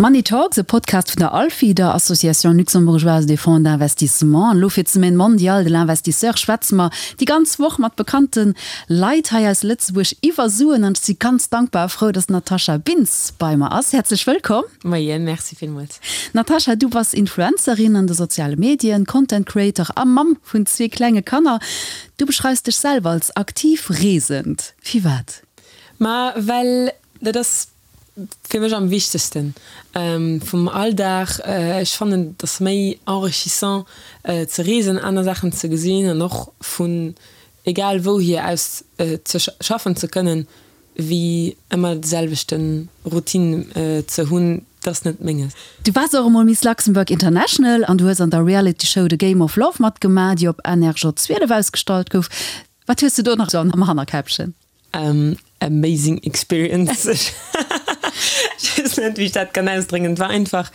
Money Talks, e Podcast vun der ALFI, der Association Luxembourgeoise des Fonds d'Investissement. An elo fir d'Semaine mondiale de l'investisseur schwätze mer déi ganz Woch mat bekannte Leit hei aus Lëtzebuerg iwwer Suen. An ech si ganz dankbar a frou, dass d'Natasha Bintz bei mer ass. Häerzlech wëllkomm. Moien, merci villmools. Natasha, du bass Influencerin an de soziale Medien, Content Creator a Mamm vun zwee klenge Kanner. Du beschreifs dech selwer als aktiv Reesend. Firwat? Ma well dat ass fir mech am wichtegsten vum Alldag. Ech fannen et ass méi enrichissant ze reesen, aner Saachen ze gesinn an och vun egal wouhier aus ze schaffen ze kënnen, wéi ëmmer de selwechte Routine ze hunn. Dat ass net menges. Du waars och emol Miss Luxembourg International an du hues an der Reality Show The Game of Love matgemaach, déi op NRJ 12 ausgestallt gouf. Wat hues du do nach sou am Hannerkäppchen? Amazing experience. Ech weess net, wéi ech dat kann ausdréngen. Et war einfach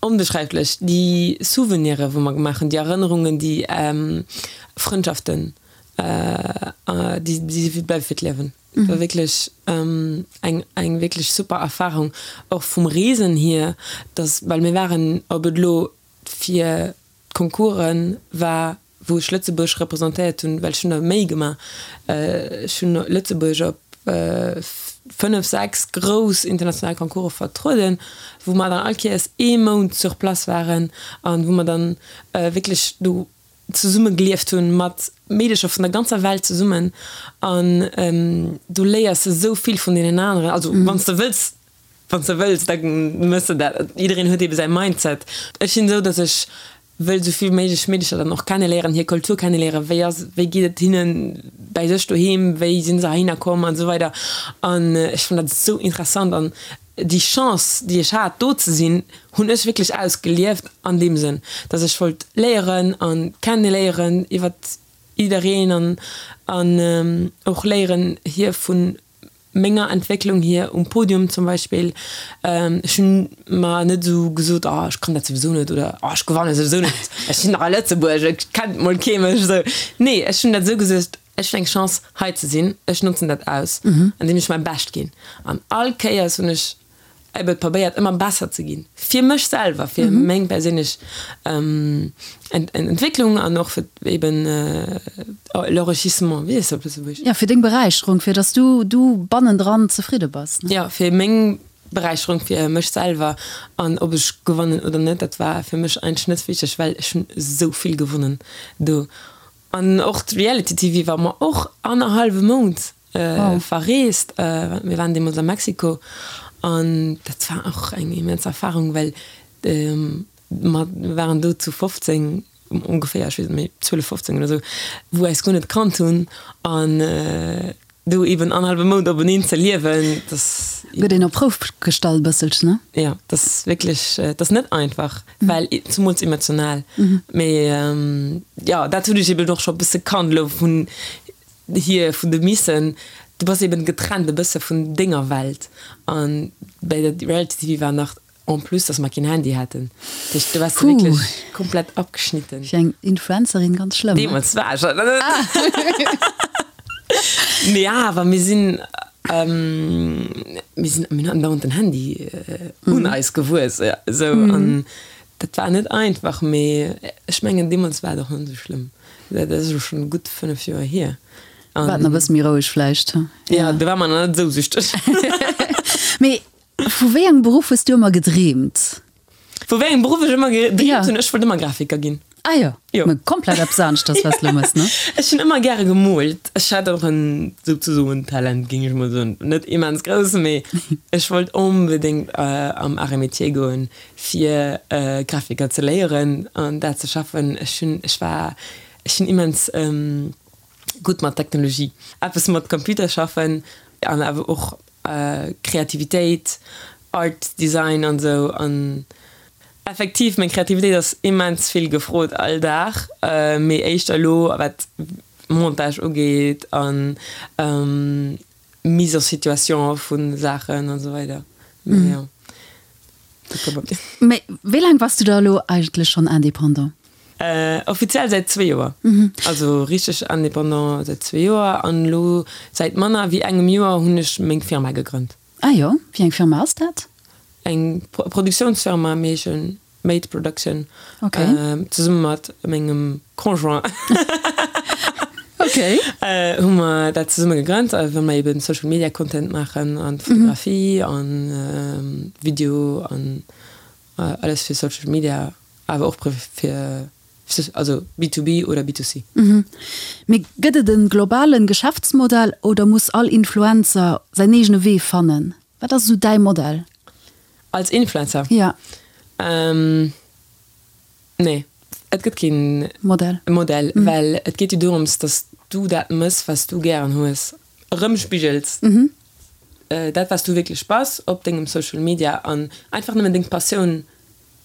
onbeschreiflech. Déi Souvenire wou mer gemaach hunn, déi Erënnerungen, déi Frëndschaften, déi bleiwe fir d'Liewen. Et war wierklech eng eng wierklech super Erfarung, och vum Reesen hier, dass, well mir waren, ob et elo fir d'Concoursen war, wou ech Lëtzebuerg representéiert hunn, well ech hunn der méi gemaach, ech hunn Lëtzebuerg op 5, 6 grouss international Concourse vertrueden, wou mer dann all Kéiers ee Mount sur place waren an wou mer dann wierklech do zesumme gelieft hunn, mat Meedecher vun der ganzer Welt zesummen an du léiers esou vill vun deenen aneren, also wann s de wëlls, wann s de wëlls, da méchs de dat. Jiddereen huet eebe säi Mindset. Ech sinn esou, datt ech wëll esou vill méiglech Meedecher dann och kenneléieren, hir Kultur kenneléieren, wéi ass, wéi geet et hinnen bäi sech doheem, wéi sinn se heihinner komm an esou weider an ech fannen dat esou interessant an déi Chance, déi ech hat do ze sinn, hunn ech wierklech ausgelieft an deem Sënn, dass ech wollt léieren an kenneléieren iwwert jiddereen an an och léieren hir vun menger Entwécklung hier um Podium zum Beispill, ech hunn mer net esou gesot, oh ech kann dat souwisou net oder oh ech gewanne souwisou net, ech sinn dach a Lëtzebuerg, et kennt mol kee mech esou. Nee, ech hunn dat esou gesot, ech hunn eng Chance hei ze sinn, ech notzen dat aus, andeem ech mäi Bescht ginn. An all Kéiers hunn ech ebe probéiert ëmmer besser ze ginn, fir mech selwer, fir meng perséinlech Entwécklung an och fir eben l'enrichissement, wéi heescht dat op Lëtzebuergesch? Jo, fir deng Beräicherung, fir datt du du bannendran zefridde bass, ne? Jo, fir meng Beräicherung, fir mech selwer. An ob ech gewannen oder net, dat war fir mech eigentlech net wichteg, well ech hunn esou vill gewonnen do. An och d'Reality TV war mer och annerhallwe Mount verreest. Mir waren deemools a Mexiko an dat war och eng immens Erfarung, well mer waren do zu 15 ongeféier, ech weess net méi, 12, 15 oder esou, wou eis guer net kannt hunn an do eben annerhallwe Mount openeen ze liewen, dass. Gëtt een op d'Prouf gestallt e bësselchen, ne? Jo, dat ass wierklech, dat ass net einfach, well zemools emotional. Mee jo, dat hunn ech eben och scho e bësse kannt elo vun hier, vun de Missen. Du bass eben getrennt e bësse vun denger Welt an bäi der Reality TV war nach En plus, dass mer keen Handy haten. Dat heescht, do waars de wierklech komplett abgeschnitten. Fir eng Influencerin ganz schlëmm, ne? Deemools war ech dat net. Mee awer, mir sinn, mir sinn, mir hunn andauernd den Handy un eis gewuess, esou. An dat war net einfach, mee ech mengen, deemools war et och net esou schlëmm. Dat ass elo schonn gutt 5 Joer hier. War et nach e bësse méi roueg vläicht? Jo, do war mer nach net esou süchteg. Mee Vu wéi engem Beruff hues du ëmmer gedreemt? Vu wéi engem Beruff ech ëmmer gedreemt hunn? Ech wollt ëmmer Grafiker ginn. Ah jo, jo. Mä komplett eppes aneschters, wat s de elo mëss, ne? Ech hunn ëmmer gäre gemoolt. Ech hat och en souzesoen Talent, géing ech mol soen. Net immens grouss, mee ech wollt onbedéngt am Arts et Métiers goen, fir Grafiker ze léieren an dat ze schaffen. Ech hunn, ech war, ech sinn immens gutt mat Technologie, eppes mat Computer schaffen an awer och Kreativitéit, Art, Design an esou. An effektiv, meng Kreativitéit ass immens vill gefrot all Dag, mee éischter elo wat Montage ugeet an Mise en situation vu Saachen an esou weider. Mee jo. Mee wéi laang bass du da elo eigentlech schonn Indépendant? Offiziell säit zwee Joer. Also richteg Indépendant säit zwee Joer an elo säit manner wéi engem Joer hunn ech meng Firma gegrënnt. Ah jo, wéi eng Firma ass dat? Eng Produktiounsfirma, mee ech hunn Made Production zesumme mat mengem Conjoint hu mer dat zesumme gegrënnt, well mer eben Social Media Content maachen an Fotografie an Video an alles fir Social Media, awer och fir also B2B oder B2C. Mee gëtt et e globalen Geschäftsmodell oder muss all Influencer säin eegene Wee fannen? Wat ass esou däi Modell? Als Influencer? Ja. Nee, et gëtt keen Modell. Modell, well et geet jo dorëms, dass du dat mëss, wat s du gären hues, erëmspigels, dat, wat s du wierklech bass op dengem Social Media an einfach nëmmen deng Passioun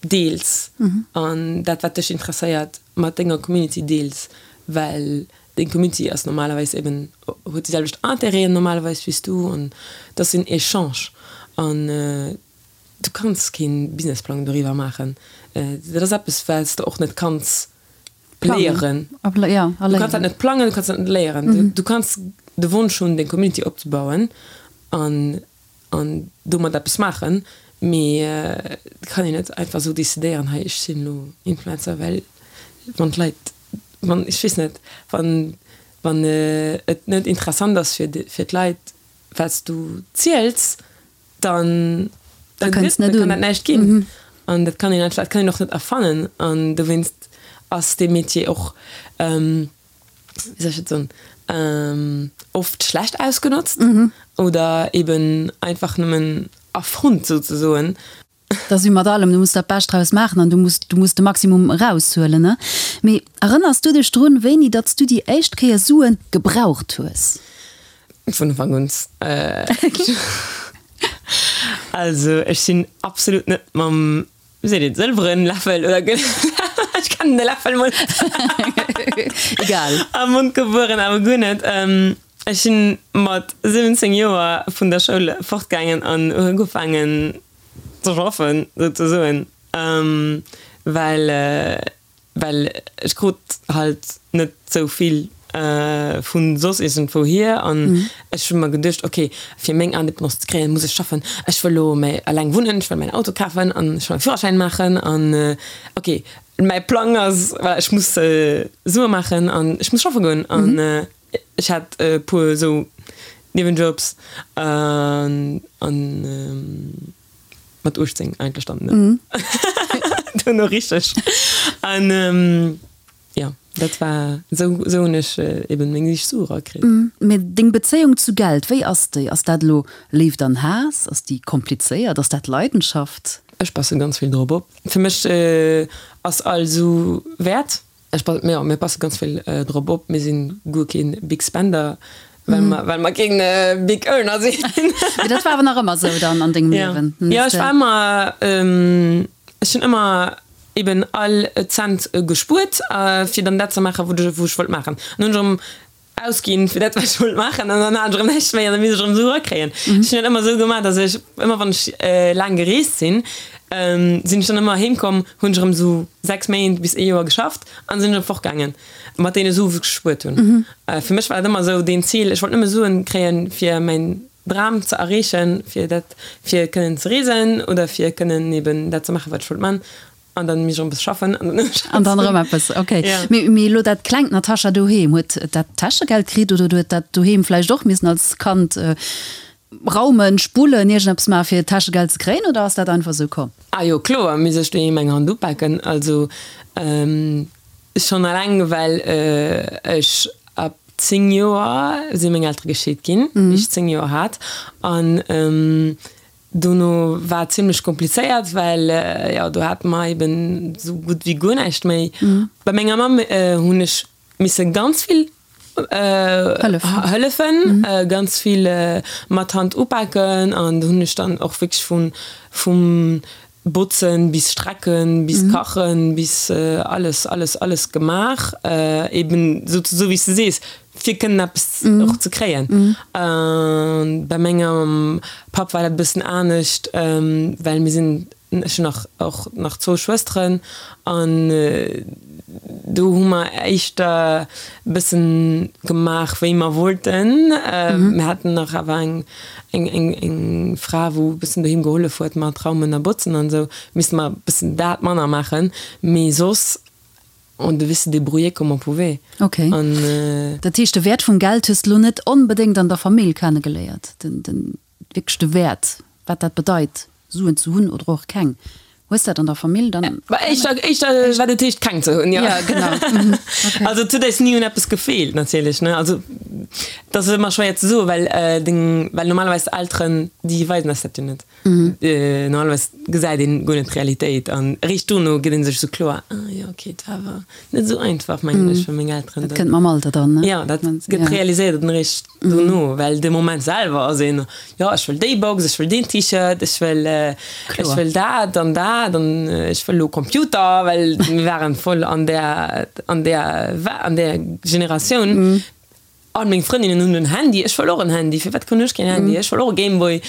deels an dat, wat dech interesséiert, mat denger Community deels, well deng Community ass normalerweis eben, huet déi selwecht Intérêten normalerweis wéi s du an et ass en Echange an du kanns kee Businessplang doriwwer maachen. Dat ass eppes, wat s de och net kanns léieren. Du kanns dat net plangen, du kanns dat net léieren. Du kanns de Wonsch hunn, deng Community opzebauen an an domat eppes maachen, mee et kann een net einfach esou decidéieren, hei ech sinn elo Influencer, well wann d'Leit, wann, ech weess net, wann wann et net interessant ass fir fir d'Leit wat s du ziels, dann da kënnt net un, kann dat näischt ginn an dat kann een einfach, dat kann een och net erfannen an dowéinst ass dee Metier och wéi soll ech dat soen, oft schlecht ausgenotzt oder eben einfach nëmmen erfonnt souzesoen. Dat ass wéi mat allem, du muss dat Bescht draus maachen an du muss, du muss de Maximum eraushuelen, ne? Mee erënners du dech drun, wéini datt s du déi éischt Kéier Sue gebraucht hues? Vun Ufank un. Also ech sinn absolut net mam Wéi seet een, sëlweren Läffel oder gëllene Läffel, ech kennen de Läffel mol net. Egal. Am Mond gebueren, awer guer net. Ech sinn mat 17 Joer vun der Schoul fortgaangen an hu ugefaangen ze schaffen, souzesoen, well Well ech krut halt net sou vill vu soss iergendwou hier an ech hu mer geduecht, ok, fir meng Indépendance ze kréien, muss ech schaffen. Ech wëll elo méi eleng wunnen, ech wëll mäin Auto kafen an ech wëll mäi Führerschäin maachen an ok, mäi Plang ass, voilà, ech muss Sue maachen an ech muss schaffe goen. An ech hat e puer sou Niewenjobs an. Mat 18 eigentlech dann, ne? Duerno richteg. An jo, dat war, esou, esou hunn ech eben meng éischt Sue erakritt. Mee deng Bezéiung zu Geld, wéi ass déi? Ass dat elo Léift an Haass? Ass déi komplizéiert? Ass dat Leidenschaft? Ech passe ganz vill drop op. Fir mech ass all Su wäert. Ech pass, jo, mir passe ganz vill drop op. Mir sinn guer keen Big Spender, well mer, well mer keen Big Earner sinn. Mee dat war awer nach ëmmer esou dann an dengem Liewen? Jo, ech war ëmmer, ech hunn ëmmer eben all Cent gespuert, fir dann dat ze maachen, wou ech wollt maachen. An hunn ech erëm Ausginn fir dat wat ech wollt maachen an dann hat ech erëm näischt méi an da misst ech erëm Sue erakréien. Ech hunn dat ëmmer esou gemaach, datt ech ëmmer wann ech laang gereest sinn, sinn ech dann ëmmer heem komm, hunn ech erëm esou 6 Méint bis ee Joer geschafft an sinn erëm fortgaangen mat deene Sue wou ech gespuert hunn. Fir mech war dat ëmmer esou deen Zil, ech wollt nëmme Suen kréien fir mäin Dram ze erreechen, fir dat fir kënnen ze reesen oder fir kënnen eben dat ze maachen wat ech wollt man An dann misst ech erëm eppes schaffen. An dann An dann erëm eppes, ok. Ja. Mee, mee elo dat klengt Natascha doheem, huet dat Täschegeld kritt oder huet dat doheem vläicht och missen als Kand raumen, spullen, iergendeppes maachen, fir Täschegeld ze kréien oder ass dat einfach esou komm? Ah jo, kloer misst ech doheem eng Hand upaken. Also schonn alleng well ech ab 10 Joer si meng Eltere gescheet ginn, wéi ech 10 Joer hat. An Dono war et zimlech komplizéiert, well jo do hate mer eben esou gutt wéi guer näischt méi. Bei menger Mamm hunn ech misse ganz vill hëllefen, ganz vill mat Hand upaken an do hunn ech dann och wierklech vu vum Botzen bis Strecken bis Kachen bis alles, alles, alles gemaach, eben esou wéi s de sees, fir kënnen eppes och ze kréien. Bei mengem Papp war dat e bëssen anescht, well mir sinn. Ech hunn nach och nach zwou Schwësteren an do hu mer éischter e bëssen gemaach wéi mer wollten. Mir haten nach awer eng eng eng eng Fra wou e bëssen doheem gehollef huet mat Raumen a Botzen an esou. Misste mer e bëssen dat manner maachen, mee soss on devait se débrouiller comme on pouvait. Ok. An. Dat heescht de Wäert vum Geld hues de lo net onbedéngt an der Famill kennegeléiert, den den wierklech de Wäert, wat dat bedeit, Suen ze hunn oder och keng. Hues dat an der Famill dann? Bah, éischter, éischter wat et heescht, keng ze hunn, jo. Ja, genau. Mhm. Okay. Also et huet eis ni un eppes gefeelt natierlech, ne. Also et ass ëmmer schwéier ze soen, well deng, well normalerweis d'Elteren, déi weisen eis dat jo net. Normalerweis gesäit een guer net d'Realitéit an eréischt dono gëtt een sech esou kloer, ah jo, okay, et war awer net esou einfach, mengen ech, fir meng Elteren. Dat kënnt mam Alter dann, ne? Jo, dat gëtt realiséiert dann eréischt dono, well de Moment selwer ass een, jo, ech wëll déi Box, ech wëll deen T-Shirt, ech wëll, ech wëll dat an dat an ech wëll elo Computer, well mir waren voll an där, an där, an där Generatioun. All meng Frëndinnen hunn en Handy, ech wëll och en Handy, firwat krunn ech keen Handy, ech wëll och e Gameboy.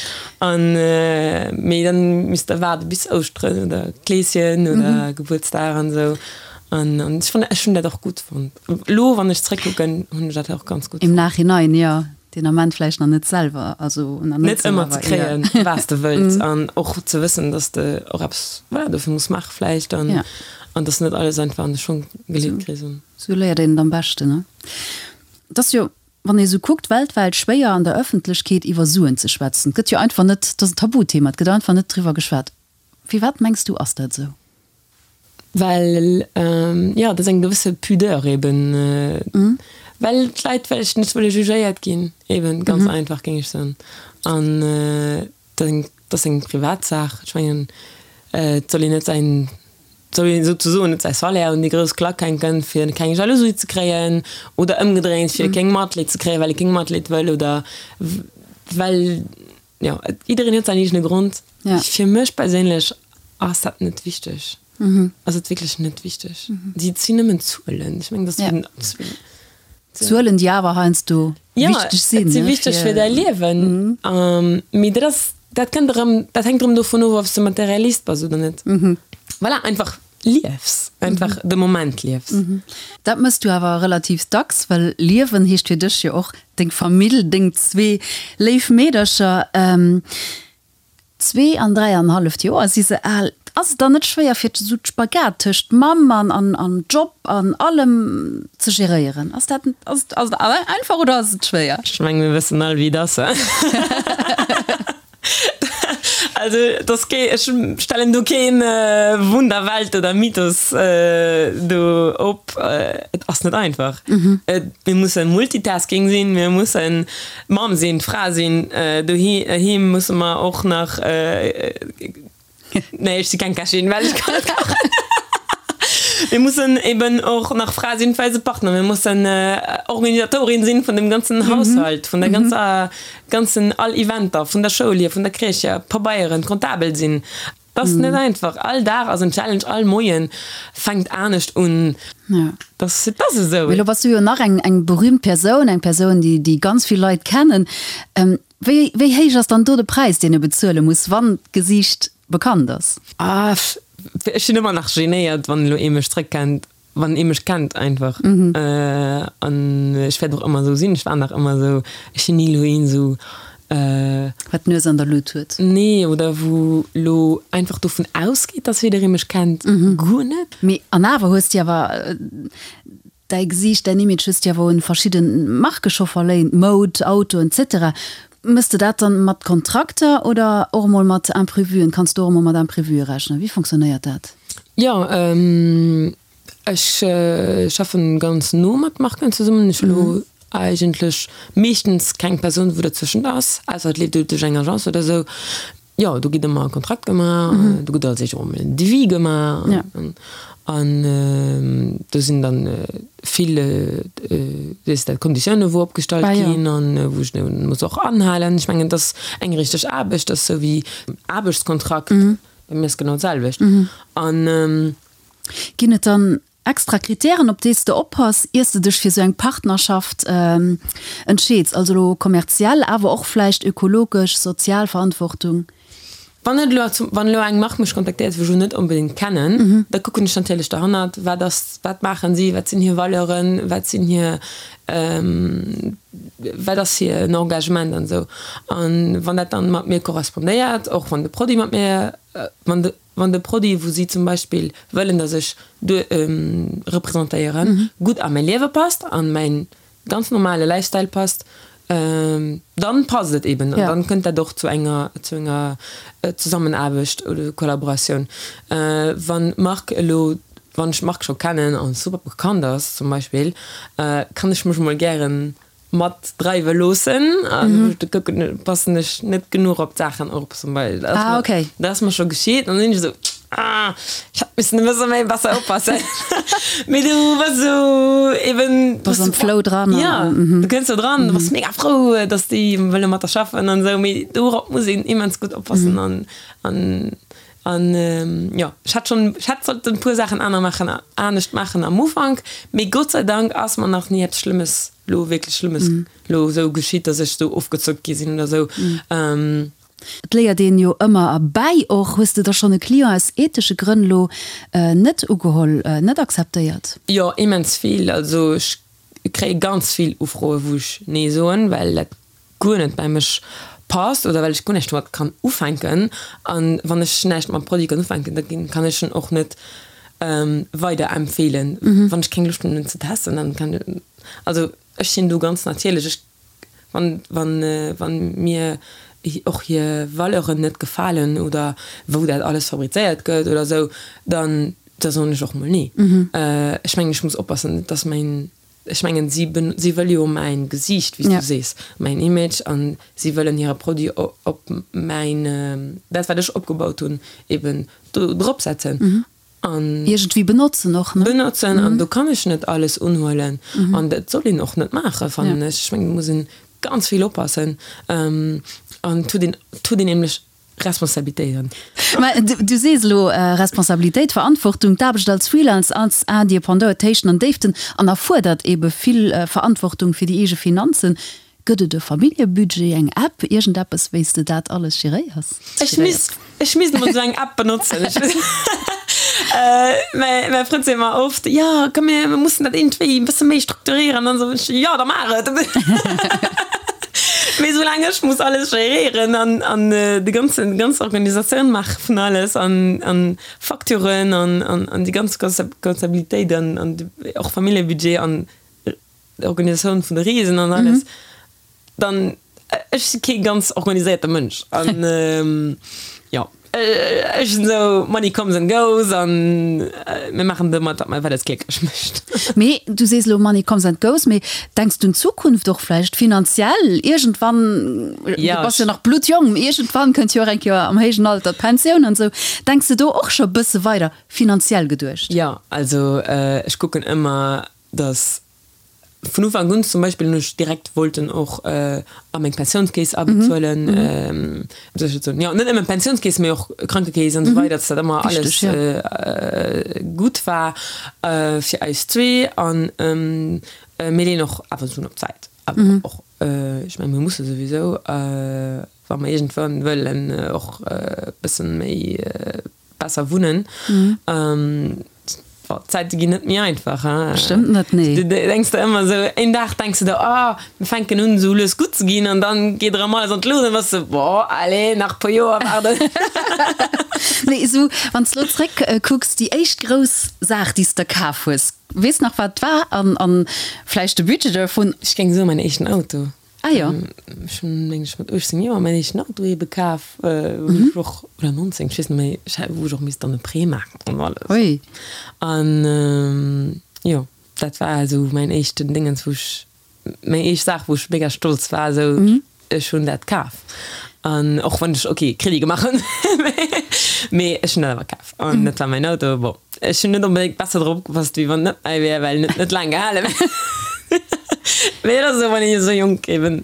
An mee dann misst der waarde bis Ouschteren oder Kleeschen oder Gebuertsdag an esou. An an ech fannen, ech hunn dat och gutt fonnt. Elo wann ech zréckkucken, hunn ech dat och ganz gutt fonnt. Im Nachhinein, jo. Deen Ament vläicht nach net selwer, also nach net esou, awer. Net ëmmer ze kréien, wat s de wëlls an och ze wëssen, dass de och eppes, voilà, dofir muss maache vläicht an an dass net alles einfach an de Schong geleet kriss. Esou léiert een et am beschten, ne? Et ass jo, wann ee sou kuckt, weltwäit schwéier an der Ëffentlechkeet iwwer Suen ze schwätzen. Et gëtt jo einfach net, et ass en Tabuthema, et gëtt einfach net driwwer geschwat. Firwat mengs du ass dat esou? Well, jo, et ass eng gewësse Pudeur eben, well d'Leit vläicht net wëlle jugéiert ginn, eben, ganz einfach, géing ech soen. An et ass eng Privatsaach. Ech mengen, et soll een net säin soll een souzesoen net säi Salaire un déi grouss Klack hänken, fir keng Jalousie ze kréien, oder ëmgedréint, fir keng Matleed ze kréien, well ee keng Matleed wëll, oder well, jo, jiddereen huet säin eegene Grond. Fir mech perséinlech ass dat net wichteg, ass et wierklech net wichteg. Et sinn nëmmen Zuelen. Ech mengen, dat ass wéi. Zuelen, déi awer heiansdo wichteg sinn. Jo, et si wichteg fir däi Liewen. Mee dat ass, dat kënnt erëm, dat hänkt erëm dovun of, ob s de Materialist bass oder net. Voilà, einfach liefs, einfach de Moment liefs. Dat mëss du awer relativ dacks, well liewen heescht fir dech jo och deng Famill, deng zwee léif Meedercher. Zwee an dräianhalleft Joer si se al. Ass et dann net schwéier fir esou d'Spagat tëscht Mamm an an Job an allem ze geréieren? Ass dat ass et ass et einfach oder ass et schwéier? Ech mengen mir wëssen all wéi et ass. Also et ass kee ech stellen do keen Wunderwelt oder Mythos do op. Et ass net einfach. Mir musse Multitasking sinn, mir mussen Mamm sinn, Fra sinn, doheem musse mer och nach, nee ech si keng Kächin, well ech kann net kachen. Mir mussen eben och nach Fra sinn fir eise Partner, mir mussen Organisatorin sinn vun dem ganzen Haushalt, vun der ganzer, ganzen all Eventer, vun der Schoul hier, vun der Crèche hier, Pabeieren, Comptabel sinn. Et ass net einfach. All Dag ass en Challenge, all Moien fänkt anescht un. Dat ass esou. Mee lo bass du jo nach eng eng berühmt Persoun, eng Persoun, déi déi ganz vill Leit kennen. Wéi wéi héich ass dann do de Präis, deen e bezuele muss, wann d'Gesiicht bekannt ass? Ah, ech sinn ëmmer nach genéiert, wann elo ee mech zréckkennt. Wann ee mech kennt einfach. An ech wäert och ëmmer esou sinn, ech war nach ëmmer esou, ech sinn ni elo een esou. Wat d'Nues an der Lut huet. Nee, oder wou elo einfach dovun ausgeet, dass jidderee mech kennt. Guer net. Mee an awer hues de awer däi Gesiicht, däin Image hues de awer un verschidde Marke scho verléint, Moud, Autoen, etc. Mëss de dat dann mat Kontrakter oder och emol mat Imprevuen? Kanns du och emol mat Imprevue rechnen? Wéi fonctionnéiert dat? Jo, ech schaffen ganz no mat Marken zesummen. Ech hu lo eigentlech meeschtens keng Persoun wou derzwëschent ass, ausser et leeft elo duerch eng Agence oder esou. Jo, do gëtt ëmmer e Kontrakt gemaach, do gëtt als éischt och emol en Devis gemaach an do sinn dann vill, wéi heescht dat, Konditioune wou opgestallt ginn an wou ech muss och anhalen. Ech mengen, et ass eng richteg Aarbecht, et ass esou wéi Aarbechtskontrakt. Bei mir ass genau d'selwecht. An. Ginn et dann extra Kritären, op déi s de oppass, ier s de dech fir esou eng Partnerschaft entscheeds? Also elo kommerziell, awer och vläicht ökologesch, sozial Verantwortung? Wann et elo zum, wann elo eng Mark mech kontaktéiert, wou ech elo net onbedéngt kennen, da kucken ech natierlech derhannert, wat ass, wat maachen si, wat sinn hir Valeuren, wat sinn hir, wat ass hiren Engagement an esou. An wann dat dann mat mir korrespondéiert, och wann de Produit mat mir, wann de, wann de Produit, wou si zum Beispill wëllen, datt ech duer representéieren, gutt a mäi Liewe passt, an mäin ganz normale Lifestyle passt, dann passt et eben an dann kënnt dat och zu enger zu enger Zusammenaarbecht oder Kollaboratioun. Wann d'Mark elo, wann ech d'Mark scho kennen an super bekannt ass zum Beispill, kann ech mech mol gären mat dreiwe loossen an da kucken, passen ech net genuch op d'Saachen op zum Beispill. Dat ass mer scho geschitt an dann sinn ech esou, Ah, ech hätt missen e bësse méi besser oppassen. Mee du bass esou eben. Bass am Flow dran. Ja, du kënns do dran, du bass mega frou, dass déi wëlle mat der schaffen an esou. Mee dorop muss een immens gutt oppassen an, an, an jo, ech hätt schonn, ech hätt sollten e puer Saachen aner maachen, anescht maachen am Ufank. Mee Gott sei Dank ass mer nach ni eppes Schlëmmes, lo wierklech Schlëmmes lo esou geschitt, dass ech esou ofgezockt gi sinn oder esou. Et léiert een jo ëmmer erbäi och. Hues de da schonn e Client aus ethesche Grënn lo net ugeholl, net akzeptéiert? Jo, immens vill. Also ech kréie ganz vill Ufroe wou ech nee soen, well dat guer net bei mech passt oder well ech guer näischt domat kann ufänken. An wann ech näischt mam Produit kann ufänken, da kann ech en och net weiderempfeelen. Wann ech keng Loscht hunn en ze testen, dann kann, also ech sinn do ganz natierlech. Ech Wann, wann, wann mir och hir Valeuren net gefalen oder wou dat alles fabrizéiert gëtt oder esou, dann, da soen ech och mol nee. Ech mengen, ech muss oppassen, dass mäin, ech mengen, si, si wëlle jo mäin Gesiicht, wéi s du sees, mäin Image an si wëllen hire Produit op mäin, dat wat ech opgebaut hunn, eben do drop setzen. An iergendwéi benotzen och, ne? Benotzen, an do kann ech net alles unhuelen. An dat soll een och net maachen, fannen ech. Ech mengen, do muss een ganz vill oppassen. An et huet een, et huet een nämlech Responsabilitéiten. Mä du sees elo Responsabilitéit, Verantwortung, d'Aarbecht als Freelance, als Indépendant huet Héichten an Déiften an erfuerdert ebe vill Verantwortung fir déi eege Finanzen. Gëtt et e Familljebudget, eng App, iergendeppes, wéi s de dat alles geréiers? Ech misst, ech misst emol esou eng App benotzen. Mäi Frënd seet mer oft, jo komm mir mussen dat iergendwéi e bësse méi strukturieren an esou. Ech, jo da maach et! Mee soulaang ech muss alles geréieren an, an de ganzen, déi ganz Organisatioun maache vun alles an, an Facturen an, an, an déi ganz Comptabilitéit an, an och Familljebudget an Organisatioun vun de Reesen an alles, dann ech si kee ganz organiséierte Mënsch an jo ech sinn esou money comes and goes an mir maachen domat wat wat eis glécklech mécht. Mee du sees elo money comes and goes, mee denks du un d'Zukunft och vläicht finanziell iergendwann, du bass jo nach bluttjong, iergendwann kënnt jo och eng Kéier am héijen Alter d'Pensioun an esou, denks de do och scho e bësse weider finanziell geduecht? Jo, also ech kucken ëmmer dass vun Ufank un zum Beispill hunn ech direkt wollten och a meng Pensiounskeess abezuelen, wéi soll ech dat soen, jo net nëmmen Pensiounskeess, mee och Krankekeess an esou weider, dass dat ëmmer alles gutt war fir eis zwee an mir leeën och awer Suen op d'Säit, awer och, ech mengen mir musse souwisou, wa mer iergendwann wëllen och e bëssen méi besser wunnen. D'Zäite ginn net méi einfach, hein. Bestëmmt net, nee. Du denks der ëmmer esou, een Dag denks du der, oh, mir fänken un esou lues gutt ze ginn an dann geet erëm alles an d'Luucht an dann bass du, boah, allez, nach e puer Joer waarden. Mee esou, wann s de elo zréck kucks, déi éischt grouss Saach, déi s de kaf hues, weess nach wat et war an, an vläicht de Budget dovun? Ech géing soen, mäin éischten Auto. Ah jo. Ech hunn, meng ech, mat 18 Joer mäin éischten Auto ebe kaf, wou ech och, oder 19, ech weess net méi, ech hat, wou ech och misst dann e Prêt maachen an alles. Ui. An jo, dat war esou mäin éischten Dingens, wou ech, meng éischt Saach, wou ech mega stolz war, esou, ech hunn dat kaf. An och wann ech, ok, Crédit gemaach hunn, mee ech hunn dat awer kaf. An dat war mäin Auto. Bon, ech hunn net onbedéngt besser drop opgepasst, wéi wann et net mäi wär, well en huet net laang gehalen. Mee dat ass esou, wann een esou jonk eben.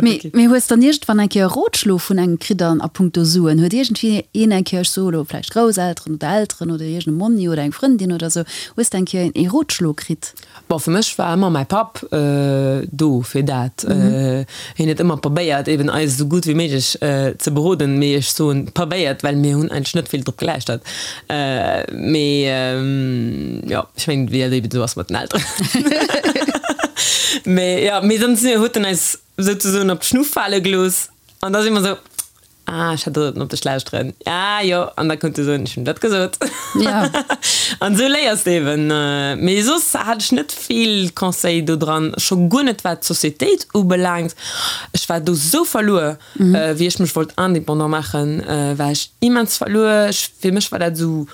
Mee, mee hues dann iergendwann eng Kéier e Rotschlo vun engem kritt an a punkto Suen? Huet iergendwéi een eng Kéier, ech soe lo vläicht Grousselteren oder Elteren oder iergend e Monni oder eng Frëndin oder sou, hues de eng Kéier ee Rotschlo kritt? Bon, fir mech war ëmmer mäi Papp do fir dat. Hien huet ëmmer probéiert eben eis esou gutt wéi méiglech ze beroden, mee ech soen probéiert, well mir hunn eigentlech net vill drop gelauschtert. Mee jo, ech mengen wéi dat eben esou ass mat den Elteren. Mee jo, mee dann huet en eis souzesoen op d'Schnuff fale gelooss an da si mer esou, Ah, ech hätt sollten op dech lauschteren. Ah jo, an da konnt du soen, ech hunn dat gesot. Ja. An esou léiers de eben. Mee soss hat ech net vill Conseil do dran, scho guer net wat d'Societéit ubelaangt. Ech war do sou verluer, wéi ech mech wollt indépendant maachen, war ech immens verluer. Ech, fir mech war dat esou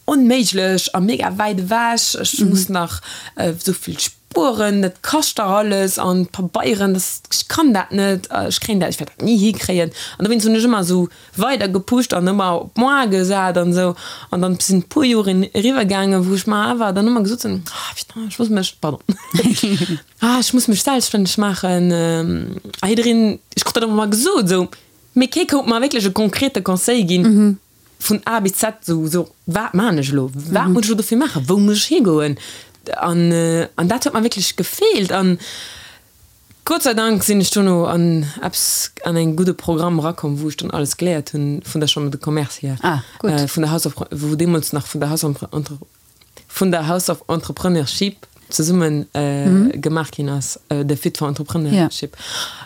onméiglech a mega wäit ewech. Ech muss nach esou vill Spueren, dat kascht dach alles an d'Pabeieren, das, ech kann dat net, ech kréien dat, ech wäert dat ni hikréien. An dowéinst hunn ech ëmmer esou weider gepusht an ëmmer op moi gesat an esou. An dann sinn e puer Joren eriwwer gaangen, wou ech mer awer dann ëmmer gesot hunn, ah putain, ech muss mech, pardon, ah ech muss mech selbststänneg maachen. A jiddereen, ech krut dat ëmmer gesot esou, mee kee konnt mer wierklech e konkrete Conseil ginn. vun A bis Z esou, esou, wat maachen ech elo, wat muss ech elo dofir maachen, wou muss ech higoen? An, an dat huet mer wierklech gefeelt. An Gott sei Dank sinn ech dono an eppes, an e gudde Programm erakomm, wou ech dann alles geléiert hunn vun der Chambre de Commerce hier, ah, gutt. vun der House of, wou deemools nach vun der House of Entre, vun der House of Entrepreneurship zesumme gemaach ginn ass, de Fit for Entrepreneurship,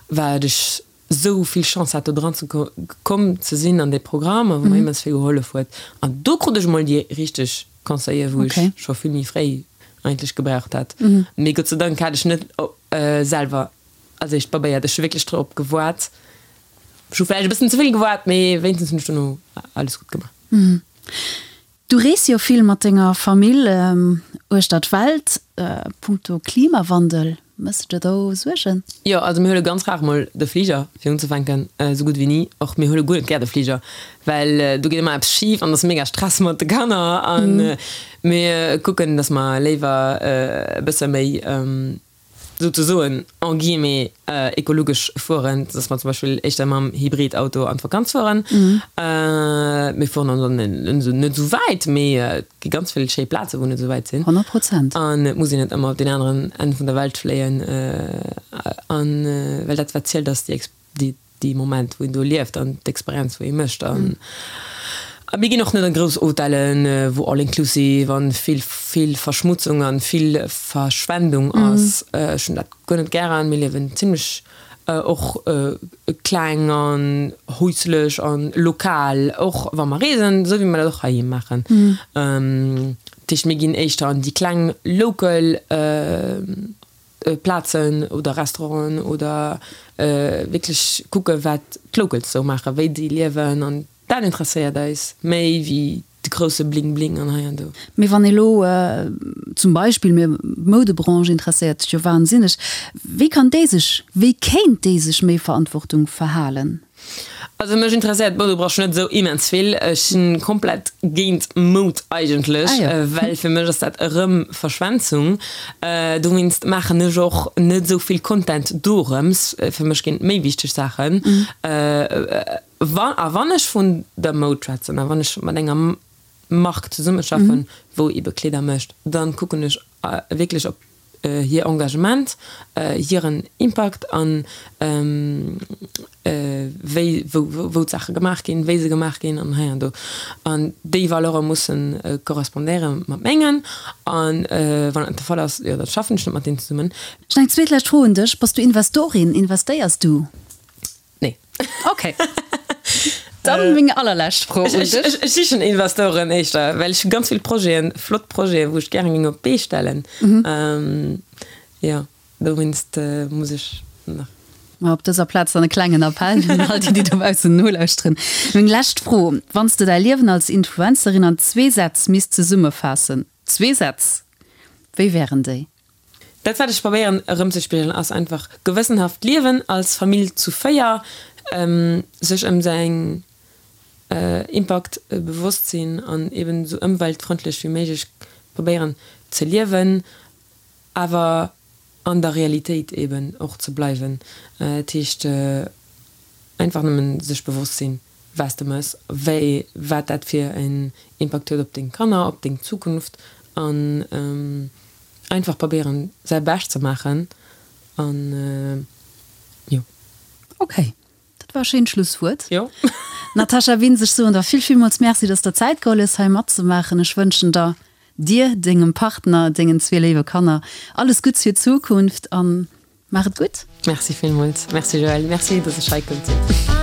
wat ech esou vill Chance hat do dran ze komm ze sinn an dee Programm a wou mer immens vill gehollef huet. An do krut ech emol déi richteg Conseiller wou ech scho vill méi fréi eigentlech gebraucht hätt. Mee Gott sei Dank hat ech net selwer als éischt probéiert. Ech hu wierklech drop gewaart. Ech hu vläicht e bëssen ze vill gewaart, mee wéinstens hunn ech dono alles gutt gemaach. Du rees jo vill mat denger Famill uechter d'Welt. Punkto Klimawandel, méchs de der do Suergen? Jo, also mir huele ganz rar mol de Fliger fir unzefänken, esou gutt wéi ni. Och mir huele guer net gär de Fliger, well do geet ëmmer eppes schif an et ass mega Stress mat de Kanner. A mir kucken, datt mer léiwer e bësse méi souzesoen, en guillemets, ekologesch fueren, dass mer zum Beispill éischter mam Hybridauto an d'Vakanz fueren. Mir fueren dann net esou wäit, mee et gi ganz vill schéi Plaze wou net esou wäit sinn. 100 Prozent. An et muss een net ëmmer op deen aneren Enn vun der Welt fléien. An well dat wat zielt ass déi déi dee Moment wou een do lieft an d'Experienz wou ee mécht an a mir ginn och net an grouss Hotellen wou all inclusive an vill vill Verschmutzung an vill Verschwendung ass. Ech hunn dat guer net gären. Mir liewen zimlech och kleng an häuslech an lokal och wa mer reesen, esou wéi mer dat och heiheem maachen. Dat heescht mir ginn éischter an déi kleng local Plazen oder Restauranten oder wierklech kucke wat d'Locals sou maachen, wéi déi liewen an dat interesséiert eis méi wéi de grousse Bling Bling an hei an do. Mee wann ee lo zum Beispill, mir d'Moudebranche interesséiert sech jo wahnsinneg, wéi kann déi sech, wéi kéint déi sech méi Verantwortung verhalen? Also mech interesséiert d'Moudebranche net esou immens vill. Ech sinn komplett géint Moud eigentlech, well fir mech ass dat erëm Verschwenzung. Dowéinst maachen ech och net esou vill Content dorëms. Fir mech ginn et méi wichteg Saachen. A wann ech vun der Moud schwätzen a wann ech mat enger Mark zesummeschaffen, wou ebe Kleeder mécht, dann kucken ech wierklech op hir Engagement, hiren Impakt an wéi, wou, wou d'Saache gemaach ginn, wéi se gemaach ginn an hei an do. An déi Valeure mussen korrespondéiere mat mengen. An wann dat net de Fall ass, jo, da schaffen ech net mat deenen zesummen. Ech hunn eng zweet lescht Fro un dech, Bass du Investorin? Investéiers du? Nee. Ok. Dann meng allerlescht Fro un dech. Ech sichen Investoren éischter, well ech hu ganz vill Projeten, flott Projeten, wou ech gären géing op d'Bee stellen. Jo, dowéinst muss ech nach. Ma op dëser Plaz dann e klengen Appell un all déi, déi dobaussen nolauschteren. Meng lescht Fro, Wann s de däi Liewen als Influencerin an zwee Sätz misst zesummefaassen, zwee Sätz, wéi wären déi? Dat wat ech probéieren erëmzespigelen ass einfach gewëssenhaft liewen als Famill zu 4, sech ëm säin Impakt bewosst sinn an eben esou ëmweltfrëndlech wéi méiglech probéieren ze liewen, awer. An der Realitéit eben och ze bleiwen. Dat heescht einfach nëmmen sech bewosst sinn, wat s de mëss, wéi, wat dat fir en Impakt huet op deng Kanner, op deng Zukunft an einfach probéieren säi Bescht ze maachen an jo. Ok, dat war e schéint Schlusswuert. Jo. Natascha Wintz, ech soen der vill, villmools Merci, dass der Zäit geholl hues hei matzemaachen. Ech wënschen der Dir, dengem Partner, dengen zwee léiwe Kanner alles Gutts fir d'Zukunft an maach et gutt. Merci villmools. Merci Joëlle. Merci, dass ech hei konnt sinn.